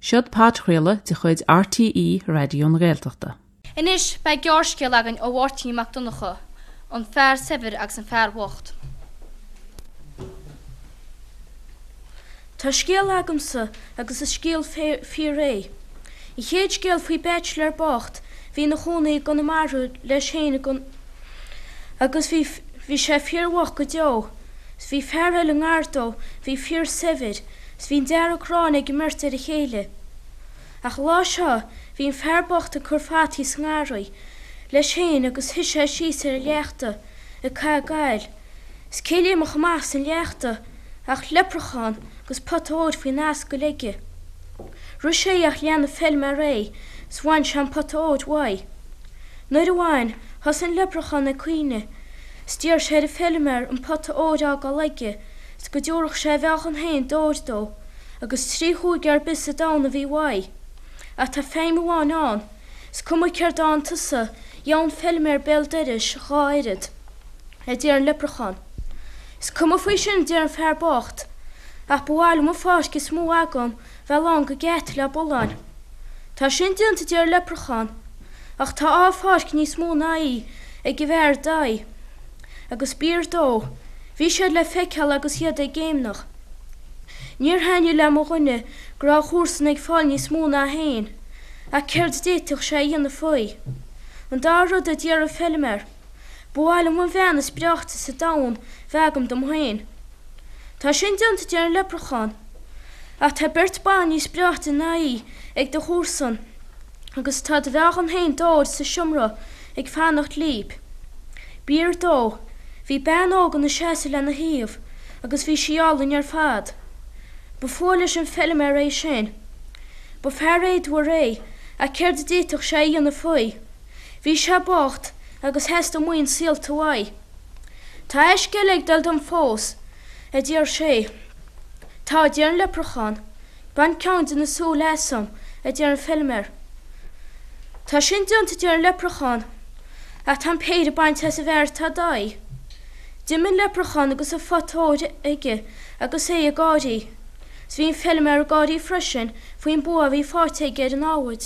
Seod podchraoladh de chuid RTÉ Raidió na Gaeltachta. Anois beidh gearrscéal againn ó Mháirtín Mac Donncha, An Fear Saibhir agus an Fear Bocht. Tá scéal agamsa agus is scéal fíor é. An chéad scéal faoi bachelor bocht bhí ina chónaí i gConamara leis féin agus bhí bhí sé fíor bhocht go deo. 'S bhí fear eile i ngar dó bhí fíor saibhir 's bhí an dearg-ghráin ag an mbeirt ar a chéile. Ach an lá seo bhí an fear bocht ag cur fataí sa ngarraí leis féin agus shuigh sé síos ar an leachta ag caitheamh gail. 'S cé léimfeadh amach as an leachta ach leipreachán agus pota óir faoin ascaill aige. Rith sé ach lean an feilméar é 's bhain sé an pota óir uaidh. Nuair a bhain, thosaigh an leipreachán ag caoineadh 's d'iarr sé ar an feilméar an pota óir a fhágáil aige 's go dtabharfadh sé a mheáchan féin d'ór dó agus 3 chúige ar bith sa domhan a bhí uaidh. Ach tá feidhm amháin ann, 's cuma céard a fhaigheann tusa, gheobhaidh an feilméar béal dorais dhá oiread, a deir an leipreachán. Is cuma faoi sin, a deir an fear bocht, ach ba mhaith liom an pháirc is mó agam bheith lán go geata le bulláin. Tá sin déanta, a deir an leipreachán, ach tá dhá pháirc níos mó ná í ag an bhfear ar d'aghaidh. Agus b'fhíor dó. Bhí siad le feiceáil agus iad ag géimneach. Níor thaitnigh le mo dhuine go raibh a chomharsan ag fáil níos mó ná féin, ach céard a d'fhéadfadh sé a dhéanamh faoi? An dara rud a d'iarr an feilméar, ba mhaith liom an bhean is breáichte sa domhan bheith agam dom féin. Tá sin déanta, a deir an leipreachán, ach tá beirt ban níos breáichte ná í ag do chomharsan agus tá do mheáchan féin d'ór sa seomra ag fanacht líb. B'fhíor dó. Bhí bean óg ina seasamh lena thaobh agus bhí sí álainn ar fad. Ba fuath leis an feilméar é sin. Ba fear éadmhar é ach céard a d'fhéadfadh sé a dhéanamh faoi? Bhí sé bocht agus theastaigh maoin saolta uaidh. Tá aisce eile ag dul dom fós, a deir sé. Tá, a deir an leipreachán. Bain ceann de na súile asam, a deir an feilméar. Tá sin déanta, a deir an leipreachán, ach tá an péire bainte as an bhfear atá i d'aghaidh. D'imigh an leipreachán agus an phota óir aige agus é ag gáirí. 'S bhí an feilméar ag gáirí freisin faoin bua a bhí faighte aige ar an namhaid.